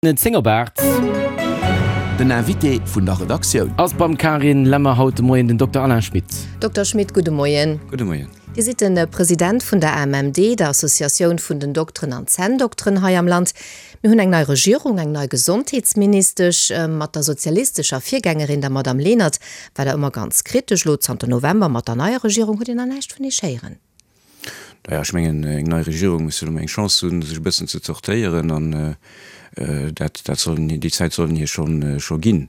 10 op 8. Den Invité vun der Redaktioun. Ass beim Carine Lemmer haut de Moien den Dokter Alain Schmit. Dokter Schmit, gudde Moien. Gudde Moien. Dir sidd de President vun der AMMD, der Associatioun vun den Dokteren an Zänndokteren hei am Land. Mir hunn eng nei Regierung, eng nei Gesondheetsministesch. Mat der sozialistescher Virgängerin, der Madame Lenert, war Der ëmmer ganz kritesch. Elo zanter November mat der neier Regierung hutt Dir nach näischt vun Iech héieren. Naja, ech mengen, eng nei Regierung muss jo elo mol eng Chance hunn, sech e bëssen ze zortéieren an dat, dat soll een, déi Zäit soll een hir schonn, scho ginn.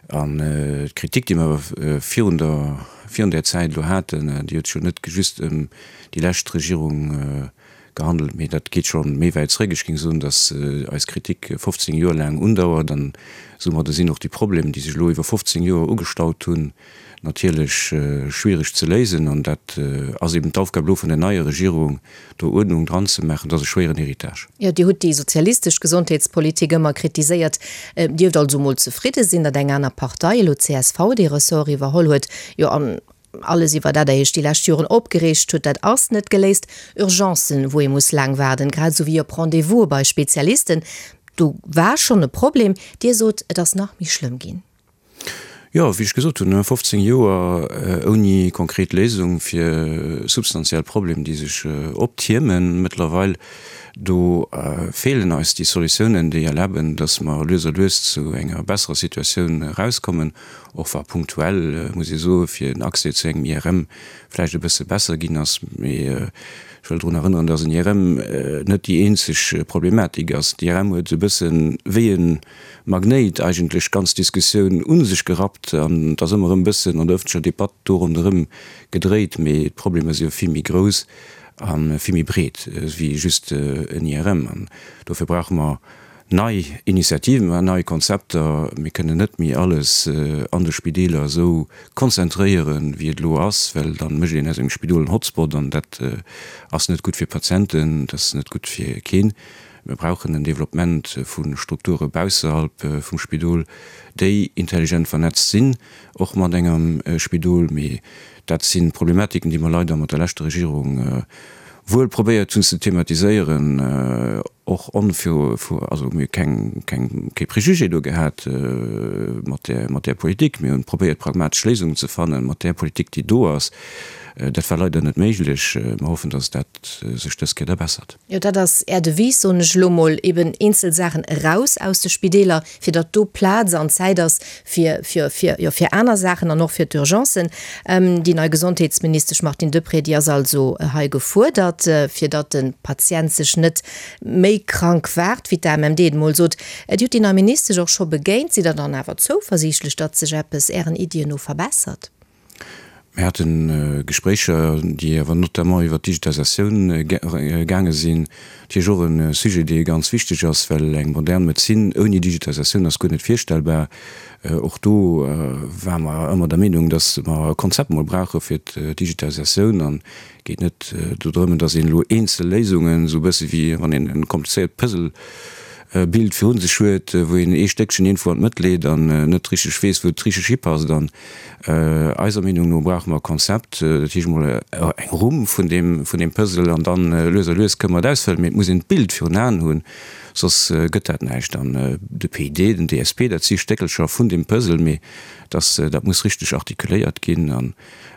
An d'Kritik, déi mer awer virun der, virun där Zäit elo haten, déi huet sech jo net just ëm déi lescht Regierung gehandelt, mee dat geet scho méi wäit zréck. Ech géing soen, datt eis Kritik 15 Joer laang undauert an soumadde sinn och déi Problemer, déi sech elo iwwer 15 Joer ugestaut hunn, natierlech schwiereg ze léisen an dat ass eben d'Aufgab elo vun der neier Regierung, do Uerdnung dran ze maachen. Dat ass e schwéieren Héritage. Jo, Dir hutt déi sozialistesch Gesondheetspolitik ëmmer kritiséiert. Dierft also mol zefridde sinn, datt eng aner Partei, elo csv, dee Ressort iwwerholl huet. Jo, an alles iwwer dat Der Iech déi lescht Joren opgereegt hutt, dat ass net geléist. Urgencen, wou ee muss laang waarden, grad esou wéi op Rendez-vouse bei Spezialisten, do war schonn e Problem. Dir sot, et ass nach méi schlëmm ginn. Jo, wéi ech gesot hunn, 15 Joer ouni konkret Léisung fir substantiell Problem, déi sech optiermen mëttlerweil. Do feelen eis déi Solutiounen, déi erlaben, datt mer lues a lues zu enger besserer Situatioun erauskommen, och wa punktuell, muss ee soen, fir den Accès zu engem IRM vläicht e bësse besser ginn ass. Mee ech wëll drun erënneren, datt en IRM net déi eenzeg Problematik ass. D'IRM huet e bësse wéi e Magnéit eigentlech d'ganz Diskussioun u sech gerappt an et ass ëmmer erëm e bëssen an der ëffentlecher Debatt do ronderëm gedréit, mee d'Problemer si jo vill méi grouss a vill méi breet wéi just en IRM. An dofir brauche mer nei Initiativen, nei Konzepter. Mir kënnen net méi alles an de Spideeler esou konzentréieren, wéi et elo ass, well da mécht een aus engem Spidol en Hotspot an dat ass net gutt fir d'Patienten, dat ass net gutt fir keen. Mir brauchen en Developpement vu Strukture bausserhalb vum Spidol, déi intelligent vernetzt sinn, och mat engem Spidol. Mee dat si Problematiken, déi mer leider mat der leschter Regierung wuel probéiert hunn ze thematiséieren, och onvir, also mir hu keng, keng, kee Préjugé do gehat mat där, mat där Politik. Mir hunn probéiert, pragmatesch Léisungen ze fannen mat där Politik, déi do ass. Dat war leider net méiglech. Mer hoffen, dass dat sech dës Kéier da bessert. Jo, dat ass Är Devise, soen ech elo mol, eben eenzel Saachen eraus aus de Spideeler, fir datt do Plaz an Zäit ass fir, fir, fir, jo, fir aner Saachen an och fir d'Urgencen. Déi nei Gesondheetsministesch Martine Deprez, déi ass also hei gefuerdert, fir datt de Patient sech net méi krank waart, wéi d'AMMD et emol sot. Dir hutt déi nei Ministesch och scho begéint. Sidd Der dann awer zouversiichtlech, datt sech eppes Ären Iddien no verbessert? Mir hate Gespréicher, déi awer notamment iwwert d'Digitalisatioun gaange sinn. Natierlech och e Sujet, dee ganz wichteg ass, well eng modern Medezin ouni Digitalisatioun ass guer net virstellbar. Och do ware mer ëmmer der Meenung, datt mer e Konzept mol brauche fir d'Digitalisatioun. An et geet net do drëm, datt een elo eenzel Léisungen, esou e bësse wéi wann een e komplizéiert Puzzle Bild virun sech huet, wou een ee Stéckchen iergendwou an d'Mëtt leet an net richteg weess, wou et richteg hipasst. An eiser Meenung no brauche mer e Konzept, dat heescht emol eng Rumm vun deem, vun deem Puzzle an dann lues a lues kënne mer et ausfëllen. Mee et muss een d'Bild virun Aen hunn, soss gëtt dat näischt. An de PID, den DSP, dat si Stéckelcher vun deem Puzzle, mee dass dat muss richteg artikuléiert ginn an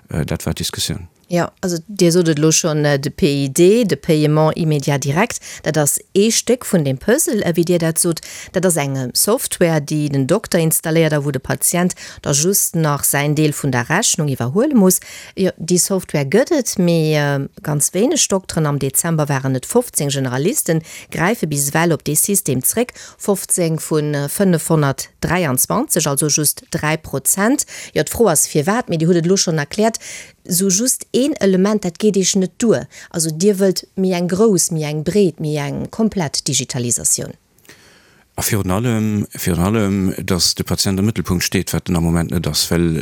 dat war d'Diskussioun. Jo, also Dir sot et elo schonn, de PID, de Paiement immédiat direct, dat ass ee Stéck vun deem Puzzle, wéi Dir dat sot. Dat ass eng Software, déi den Dokter installéiert a wou de Patient da just nach säin Deel vun der Rechnung iwwerhuele muss. Jo, déi Software gëtt et, mee ganz wéineg Dokteren, am Dezember waren et 15 Generalisten, gräife bis ewell op dee System zréck, 15 vu 523, also just 3 Prozent. Jo, d'Fro ass firwat, mee Dir hutt et elo schonn erkläert. Sou just een Element, dat geet Iech net duer. Also Dir wëllt méi eng grouss, méi eng breet, méi eng komplett Digitalisatioun. A virun allem, virun allem, dass de Patient am Mëttelpunkt steet, wat en am Moment net ass, well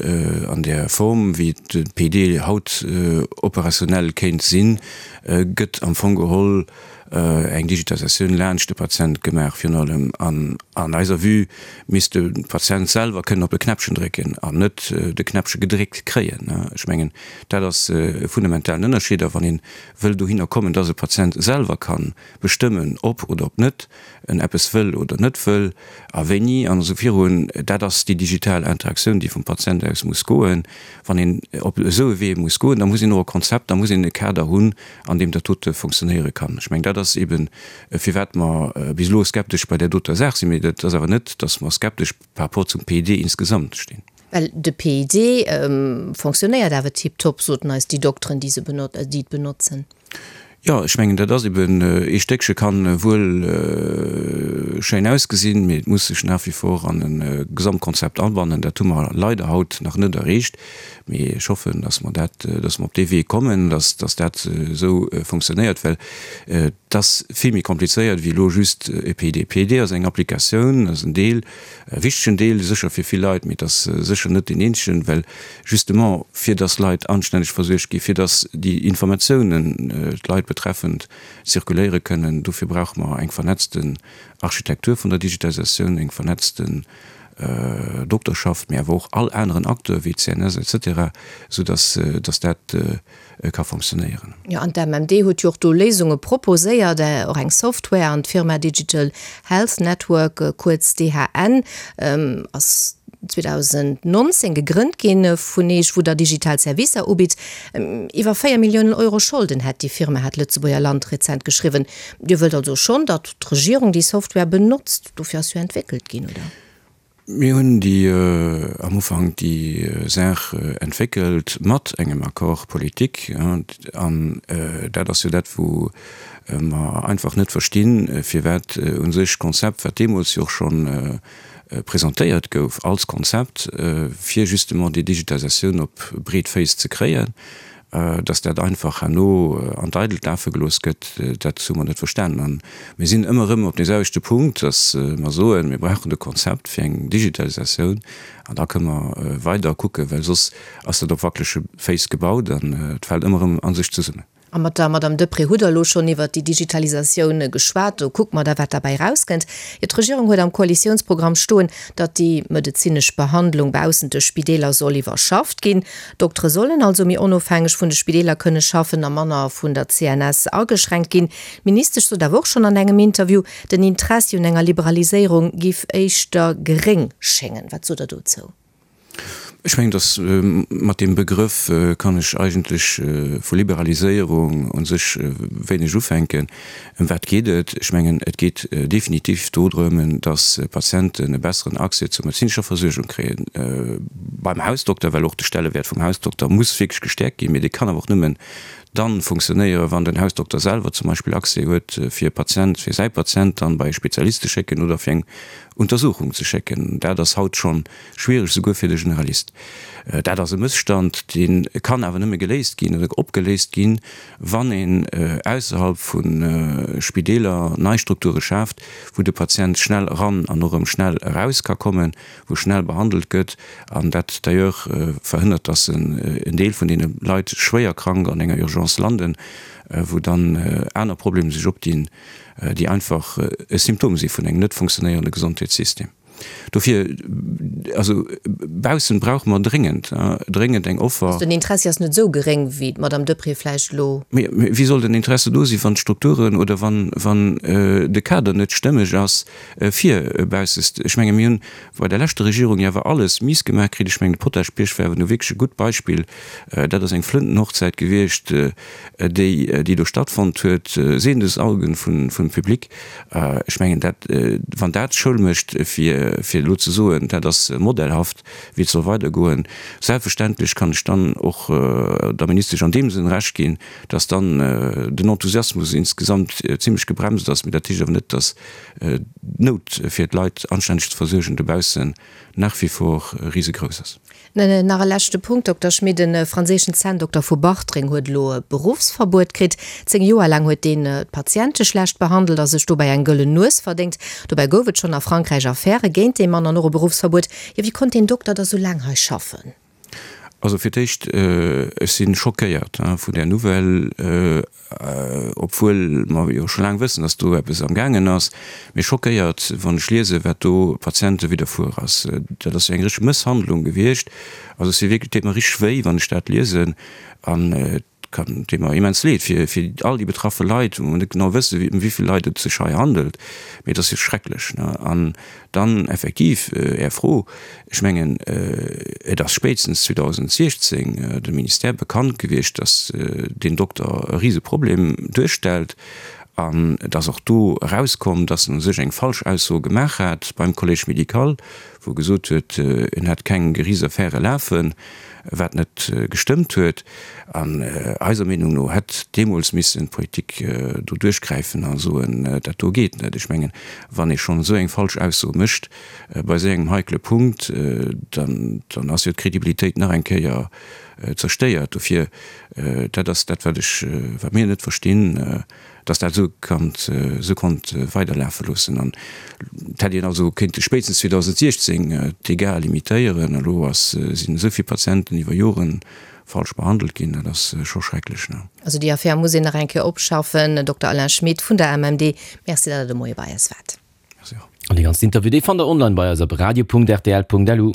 an där Form, wéi de PD haut operationell kéint sinn, gëtt am Fong geholl. eng Digitalisatioun laanscht de Patient gemaach virun allem. An an eiser Vue misst de Patient selwer kënnen op e Knäppchen drécken an net de Knäppche gedréckt kréien. Ech mengen, dat ass e fundamentalen Ënnerscheed. A wann ee wëll dohinner kommen, dass e Patient selwer ka bestëmmen, ob oder ob net en eppes wëll oder net wëll a wéini an esou virun, dat ass déi digital Interaktioun, déi vum Patient aus muss goen. Wann een op esou e Wee muss goen, da muss een och e Konzept, da muss een e Kader hunn, an deem dat dote funktionéiere kann. Ech mengen, dat ass eeben, firwat mer bis elo skeptesch bei där doter Saach sinn. Mee dat ass awer net, datt mer skeptesch par rapport zum PID insgesamt stinn. Well de PID fonctionnéiert awer tiptop, soten eis déi Dokteren, déi se déi et benotzen. Jo, ech mengen, dat ass eben, ee Stéckche kann wuel schéin ausgesinn, mee et muss sech nach wie vor an e Gesamtkonzept abannen. Dat hu mer leider haut nach net erreecht, mee ech hoffen, dass mer dat, dass mer op dee Wee kommen, dass, dass dat esou funktionéiert, well et ass vill méi komplizéiert wéi elo just e PID. PID ass eng Applikatioun, ass en Deel, e wichtegen Deel sécher fir vill Leit, mee et ass sécher net deen eenzegen, well justement fir dass Leit anstänneg versuergt ginn, fir dass déi Informatiounen d'Leit betreffend zirkuléiere kënnen. Dofir brauche mer eng vernetzten Architektur vun der Digitalisatioun, eng vernetzten Dokterschaft, mee awer och all aneren Acteur wéi d'CNS et cetera, sou dass dass dat ka fonctionnéieren. Jo, an d'MMD huet jo och do Léisunge proposéiert, och eng Software, an d'Firma Digital Health Network, kuerz DHN, ass 2019 gegrënnt ginn vun Eech, wou der digital Servicer ubitt. Iwwer 4 Milliounen Euro Scholden hätt déi Firma, hat d'Lëtzebuerger Land rezent geschriwwen. Dir wëllt also schonn, datt d'Regierung déi Software benotzt, dofir ass jo entwéckelt ginn, oder? Mir hunn déi am Ufank déi Saach entwéckelt mat engem Accord politique. An dat ass jo dat, wou mer einfach net verstinn, firwat u sech d'Konzept, wat deemools jo och scho presentéiert gouf als Konzept, fir justement déi Digitalisatioun op breet Féiss ze kréien, Dass dat einfach herno an d'Eidelt lafe gelooss gëtt, dat hu mer net verstanen. A mir sinn ëmmer erëm op deeselwechte Punkt, dass mer soen, mir brauchen e Konzept fir eng Digitalisatioun an da kënne mer weider kucken, well soss ass dat op wackelege Féiss gebaut an et fält ëmmer erëm a sech zesummen. A mat der Madame Deprez hutt Der elo schonn iwwert déi Digitalisatioun geschwat. Do kucke mer da, wat derbäi erauskënnt. Jo, d'Regierung huet am Koalitiounsprogramm stoen, datt déi medezinesch Behandlung baussent de Spideeler soll iwwerschafft ginn. D'Doktere sollen also méi onofhängeg vun de Spideeler kënne schaffen a manner vun der CNS ageschränkt ginn. D'Ministesch sot awer och schonn an engem Interview, den Interessi un enger Liberaliséierung giff éischter geréng schéngen. Wat sot Der dozou? Ech mengen, datt mat deem Begrëff kann ech eigentlech vu Liberaliséierung u sech wéineg ufänken. Ëm wat geet et? Ech mengen, et geet definitiv dodrëm, dass Patienten e besseren Accès zur medezinescher Versuergung kréien beim Hausdokter, well och de Stellewäert vum Hausdokter muss wierklech gestäerkt ginn. Mee dee kann awer och nëmmen dann funktionéieren, wann den Hausdokter selwer zum Beispill Accès huet, fir e Patient, fir säi Patient dann bei e Spezialist ze schécken oder fir eng Untersuchung ze schécken. Dat ass haut schonn schwiereg, souguer fir de Generalist. Dat ass e Mësstand, dee kann awer nëmme geléist ginn oder opgeléist ginn, wann een ausserhalb vu Spideeler nei Strukture schaaft, wou de Patient schnell eran an och erëm schnell eraus ka kommen, wou schnell behandelt gëtt an dat d'ailleurs verhënnert, dass en Deel vun deene Leit schwéier krank an enger Urgence landen, wou dann aner Problemer sech opdinn, déi einfach e Symptom si vun engem net funktionéierende Gesondheetssystem. Dofir, also baussen brauche mer dréngend, dréngend eng Offer. Also den Interessi ass net esou geréng, wéi d'Madame Deprez vläicht elo. Mee wéi soll den Interesse do sinn, wann d'Strukturen oder wann, wann de Kader net stëmmeg ass fir baussest? Ech menge mir hunn bei der leschter Regierung jo awer alles miss gemaach kritt. Ech mengen de Potaschbierg war awer nu wierklech e gutt Beispill. Dat ass eng Flëntenhochzäit gewiescht, déi, déi do stattfonnt huet, sehendes Augen vun, vum Public. Ech mengen, dat, wann dat Schoul mécht, fir, fir elo ze soen, dat ass modellhaft, wéi et soll weidergoen, selbstverständlech kann ech dann och der Ministesch an deem Sënn Recht ginn, dass dann den Enthusiasmus insgesamt zimlech gebremst ass. Mee dat heescht awer net, dass d'Nout, fir d'Leit anstänneg ze versuergen dobaussen, nach wie vor risegrouss ass. Nach e leschte Punkt, Dokter Schmit, E franséischen Zänndokter vu Bartreng huet elo e Beruffsverbuet kritt. 10 Joer laang huet deen d'Patiente schlecht behandelt a sech dobäi eng gëllen Nues verdéngt. Dobäi gouf et schonn a Frankräich Affäre géint dee Mann an och e Beruffsverbuet. Jo, wéi konnt deen Dokter da sou laang hei schaffen? Also fir d'éischt, ech si schockéiert vun där Nouvelle, obwuel mer jo scho laang wëssen, datt do eppes am gaangen ass, mee schockéiert, wann ech liesen, wat do Patiente widderfuer ass. Dat ass jo eng richteg Mësshandlung gewiescht. Also ech si wierklech, et deet mer richteg wéi, wann ech dat liesen. An et kann, deet mer immens leed fir fir all déi betraffe Leit, wou mer net genau wëssen, ëm wéi vill Leit et sech hei handelt, mee et ass jo schrecklech, ne? An dann effektiv Är Fro, ech mengen, et ass spéitstens 2016 dem Ministère bekannt gewiescht, datt deen Dokter e Riseproblem duerstellt. An et ass och do erauskomm, datt en u sech eng falsch Ausso gemaach hat beim Collège médical, wou e gesot huet, en hätt keng Geriichtsaffäre lafen, wat net gestëmmt huet. An eiser Meenung no hätt deemools missen d'Politik do duerchgräifen a soen, dat do geet net. Ech mengen, wann ee schonn esou eng falsch Ausso mécht bei esou engem heikele Punkt, dann ass jo d'Credibilitéit nach eng Kéier zerstéiert. Dofir, dat ass dat, wat ech, wat mir net verstinn. dass dat esou kannt, esou konnt weiderlafe loossen. An et hätt een also kéinte spéitstens 2016 d'Dégâts limitéieren. Elo ass, sinn esou vill Patienten iwwer Jore falsch behandelt ginn, dat ass scho schrecklech, ne? Also déi Affär muss een nach eng Kéier opschaffen. Dokter Alain Schmit vun der MMD, Merci, datt Der de Moie bei eis waart. Merci och. An dee ganzen Interview, dee fannt der online bei eis op radio.rtl.lu.